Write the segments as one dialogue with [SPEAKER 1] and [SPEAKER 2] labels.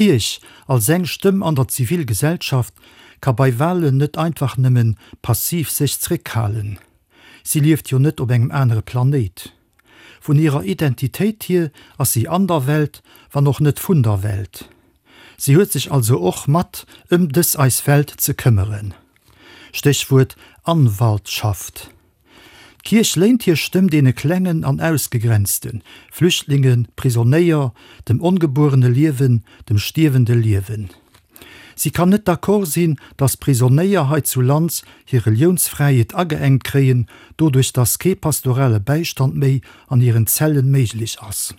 [SPEAKER 1] D'Kierch, als eng Stëmm an der Zivilgesellschaft, ka bei Wahlen net einfach nëmmen passiv sech zréckhalen. Si lieft jo net op engem anere Planéit. Vun hirer Identitéit hier ass si an der Welt, wann och net vun der Welt. Si huet sech also och mat ëm dës eis Welt ze këmmeren. Stéchwuert Anwaltschaft. D'Kierch léint hir Stëmm deene Klengen an Ausgegrenzten, Flüchtlingen, Prisonéier, dem ongebuerene Liewen, dem stierwende Liewen. Si kann net d'accord sinn, datt Prisonéier hei zu Lands hir Reliounsfräiheet ageengt kréien, doduerch datt kee pastorale Bäistand méi an hiren Zellen méiglech ass.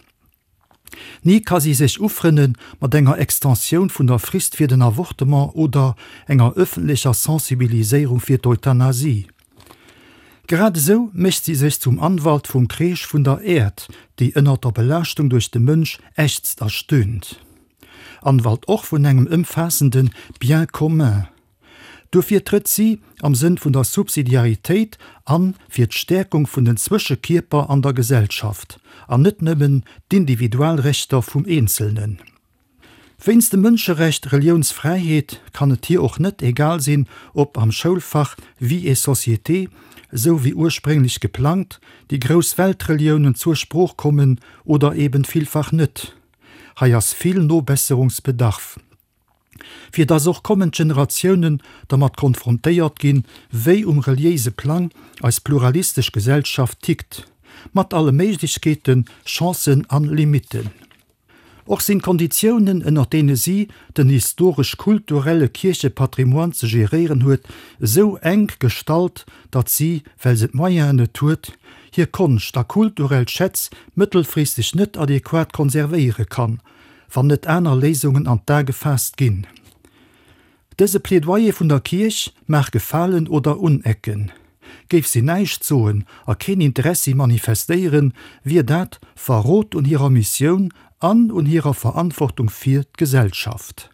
[SPEAKER 1] Ni ka si sech ufrënne mat enger Extensioun vun der Frist fir den Avortement oder enger ëffentlecher Sensibiliséierung fir d'Euthanasie. Grad esou mécht si sech zum Anwalt vum Kreesch vun der Äerd, déi ënnert der Belaaschtung duerch de Mënsch ächzt a stöhnt. Anwalt och vun engem ëmfaassende Bien commun. Duerfir trëtt si am Sënn vun der Subsidiaritéit an fir d'Stäerkung vun den Zwëschekierper an der Gesellschaft, an net nëmmen d'Individualrechter vum Eenzelnen. Wéinst dem Mënscherecht Reliounsfräiheet kann et hir och net egal sinn, ob am Schoulfach Vie et société, esou wéi ursprénglech geplangt, déi grouss Weltreliounen zur Sprooch kommen oder eben villfach net. Hei ass vill Nobesserungsbedarf, fir dass och kommend Generatiounen dermat konfrontéiert ginn, wéi um reliéise Plang eis pluralistesch Gesellschaft tickt, mat alle Méiglechkeeten, Chancen an Limitten. Och sinn d'Konditiounen, ënner deene si den historesch-kulturelle Kierchepatrimoine ze geréieren huet, esou enk gestallt, datt si, well se d'Moyenen net huet, hir Konscht a kulturell Schätz mëttelfristeg net adequat konservéiere kann, wann net aner Léisungen an d'A gefaasst ginn. Dëse Plädoyer vun der Kierch mag gefalen oder unecken. Géif si näischt soen a keen Interessi manifestéieren, wier dat Verrot un hirer Missioun an un hirer Verantwortung fir d'Gesellschaft.